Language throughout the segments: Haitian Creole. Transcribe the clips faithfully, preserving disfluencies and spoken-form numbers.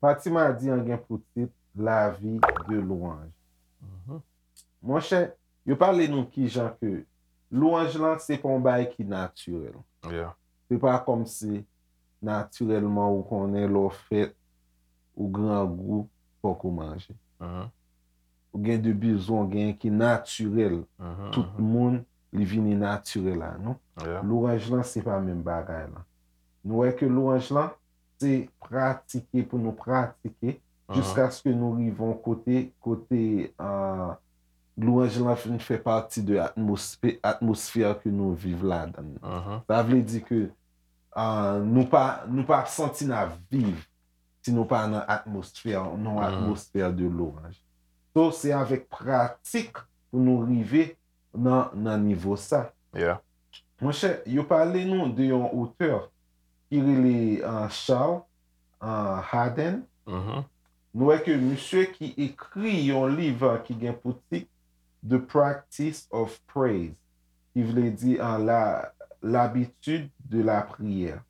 Pati madi an gen pou tit La vie de louange. Monchè, yo pale nou kijan ke lwanj lan se pa yon bagay ki natirèl. Se pa kòmsi natirèlman ou konnen lè w fèt, ou grangou, fòk ou manje. Ou gen de bizwen w genyen ki natirèl. Tout moun, li vini natirèl a nou. Lwanj lan, se pa menm bagay lan. Nou wè ke lwanj lan, se pratike pou nou pratike, jiskaske nou rive yon kote, kote, ah, lwanj lan fin fè pati de atmosfè, atmosfè ke nou viv ladan l. Sa vle di ke, ah, nou pa, nou pa santi n ap viv si nou pa nan atmosfè, nan atmosfè de lwanj. So, se avèk pratik pou nou rive nan, nan nivo sa. Monchè, yo pale nou de yon otè ki rele, ah, Charles, ah, Haden. Nou wè ke misye ki ekri yon liv, ah, ki gen pou tit The Practice of Praise, ki vle di, ah, la, l'habitude de la prière.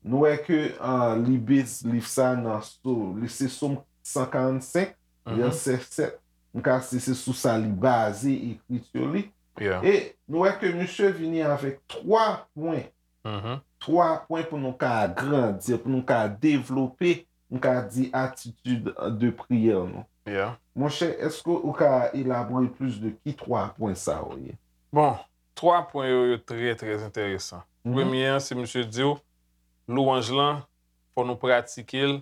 Nou wè ke, ah, li base liv sa nan so, li se Sòm san karannsenk, vèsè sèt. M ka se, se sou sa li baze ekriti li. E nou wè ke misye vini avèk twa pwen. Twa pwen pou nou ka agrandi, pou nou ka devlope, nou ka di atitid de priyè nou. Monchè, èske ou ka elabore plis de ki twa pwen sa yo ye? Bon, twa pwen yo, yo trè, trè enteresan. Premye an, se misye di w, lwanj lan, fò nou pratike l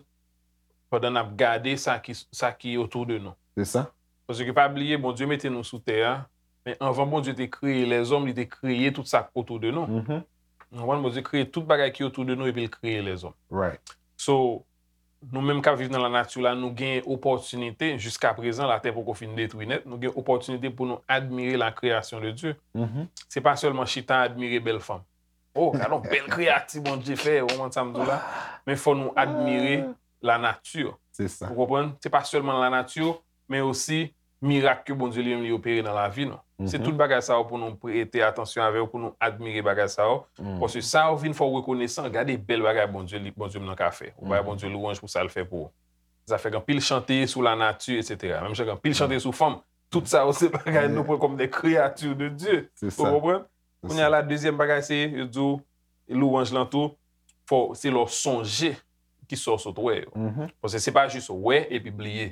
pandan n ap gade sa ki, sa ki otou de nou. Se sa. Paske pa bliye, Bondye mete nou sou tè a, men anvan Bondye te kreye lèzòm, li te kreye tout sa k otou de nou. Ou konprann? Bondye kreye tout bagay ki otou de nou epi l kreye lèzòm. So, nou menm k ap viv nan lanati la, nou gen opòtinite, jiska prezan, latè poko fin detwi nèt, nou gen opòtinite pou nou admire la création de Dieu. Se pa sèlman chita admire bèl fanm. Oh, gade yon bèl kreyati Bondye fè, ou konprann sa m di w la? Men fò nou admire lanati. Ou konprann? Se pa sèlman lanati, men osi mirak ke Bondye li menm li opere nan lavi nou. Se tout bagay sa yo pou nou prete atansyon avè yo, pou nou admire bagay sa yo. Paske sa yo vin fè w rekonesan, gade bèl bagay Bondye li, Bondye m nan ka fè. Ou bay Bondye lwanj pou sa l fè pou ou. Zafè gen anpil chante sou lanati, etsetera. Menm jan gen anpil chante sou fanm. Tout sa yo se bagay nou pran kòm des créatures de Dieu. Ou konprann? Kounye a la, dezyèm bagay se, yo di w, lwanj lan tou, fò, se lè w sonje ki sa w sot wè yo. Paske se pa jis wè epi bliye.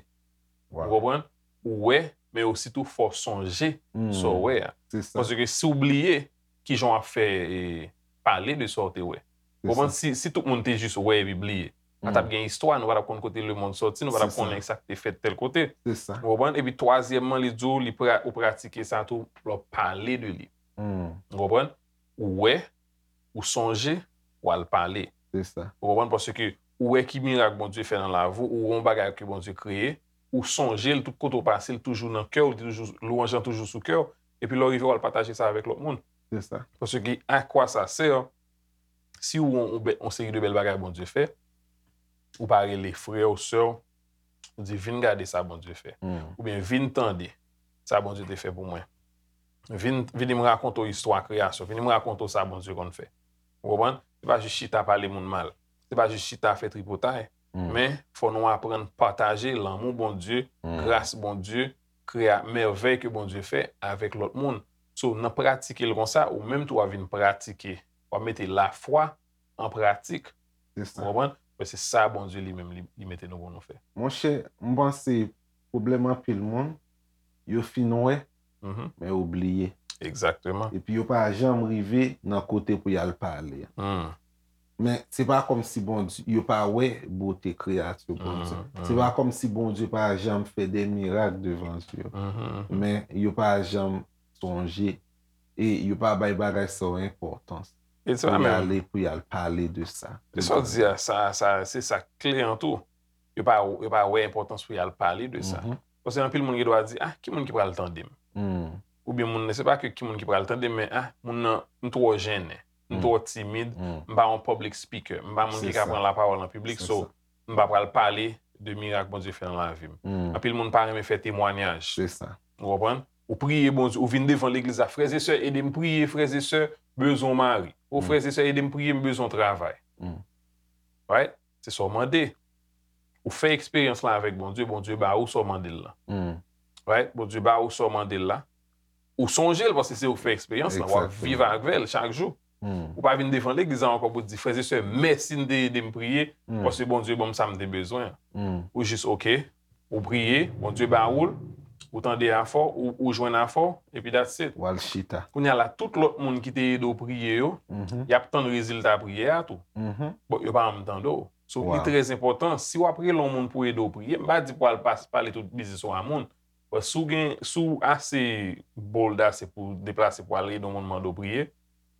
Ou konprann? Ou wè, men osi tou fò w sonje sa w wè a. Paske si w bliye, kijan w ap fè, e, pale de sa w te wè? Ou konprann? Si, si tout moun te jis wè epi bliye, pa t ap gen istwa, nou pa t ap konn kote lemonn sòti, nou pa t ap konnen sa k te fèt tèl kote. Ou konprann? Epi twazyèmman, li di w, li pra-, ou pratike sa tou, lè w pale de li. Ou konprann? Ou wè, ou sonje, ou al pale. Ou konprann? Paske ou wè ki mirak Bondye fè nan lavi w, ou wè yon bagay ke Bondye kreye, ou sonje l tout kote w pase, l toujou nan kè w, li toujou, lwanj lan toujou sou kè w, epi lè w rive, w al pataje sa avèk lòt moun. Paske à quoi ça sert, si ou wè yon, yon seri de bèl bagay Bondye fè, ou pa rele frè w, sè w, ou di, "Vin gade sa Bondye fè." Oubyen, "Vin tande sa Bondye te fè pou mwen. Vin, vini m rakonte w istwa kreyasyon. Vini m rakonte w sa Bondye konn fè." Ou konprann? Se pa jis chita pale moun mal. Se pa jis chita fè tripotay. Men, fò nou aprann pataje lanmou Bondye, gras Bondye, kreya-, mèvèy ke Bondye fè avèk lòt moun. So, nan pratike l konsa, ou menm tou w ap vin pratike. W ap mete lafwa an pratik. Ou konprann? Men se sa Bondye li menm li, li mete nou pou nou fè. Monchè, m panse pwoblèm anpil moun, yo fin wè, men yo bliye. Epi yo pa janm rive nan kote pou y al pale. Men se pa kòmsi Bondye, yo pa wè bote kreyati Bondye. Se pa kòmsi Bondye pa janm fè de mirak devan zye yo. Men yo pa janm sonje. E yo pa bay bagay sa yo enpòtans. Pou y ale, pou y al pale de sa. E sa w di a, sa, sa, se sa kle an tou. Yo pa, yo pa wè enpòtans pou y al pale de sa. Paske anpil moun gen dwa di, "Ah, ki moun ki pral tande m?" Oubyen moun nan, se pa ke ki moun ki pral tande m, men, "Ah, moun nan, m twò jennen, m twò timid, m pa yon public speaker, m pa moun ki ka pran lapawòl an piblik, so, m pa pral pale de mirak Bondye fè nan lavi m." Anpil moun pa renmen fè temwanyaj. Se sa. Ou konprann? Ou priye Bondye, ou vin devan legliz la, frè e sè, ede m priye, frè e sè, bezwen yon mari. O frè e sè, ede m priye, m bezwen yon travay. Right? Se sa w mande. Ou fè eksperyans la avèk Bondye, Bondye ba ou sa w mande l la. Right? Bondye ba ou sa w mande l la. Ou sonje l paske se ou k fè eksperyans la, w ap viv avè l chak jou. Ou pa vin devan legliz la ankò pou di, frè e sè, mèsi n te ede m priye, paske Bondye ban m sa m te bezwen an. Ou jis, oke, ou priye, Bondye ba ou l, ou tande afè w, ou, ou jwenn afè w, epi that's it. W al chita. Kounye a la, tout lòt moun ki te ede w priye yo, y ap tann rezilta priyè a tou. Bon, yo pa janm tande w. So, li trè enpòtan, si w ap rele yon moun pou ede w priye, m pa di pou al pas-, pale tout biznis ou a moun, but si w gen, si w ase bold ase pou deplase pou al ede yon moun mande w priye,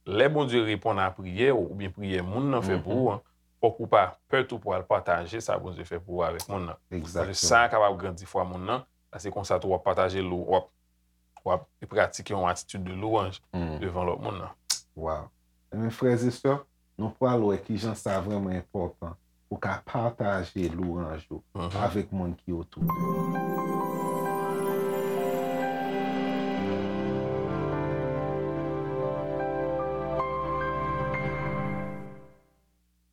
lè Bondye reponn a priyè w oubyen priyè moun nan fè pou ou an, fòk ou pa pè tou pou al pataje sa Bondye fè pou ou avèk moun nan. Paske sa kapab grandi fwa moun nan, paske konsa tou w ap pataje lou, w ap, w ap pratike yon atitid de louwanj devan lòt moun nan. Wow. Ebyen, frè e sè, nou pral wè kijan sa vrèman enpòtan pou ka pataje louwanj ou avèk moun ki otou de ou.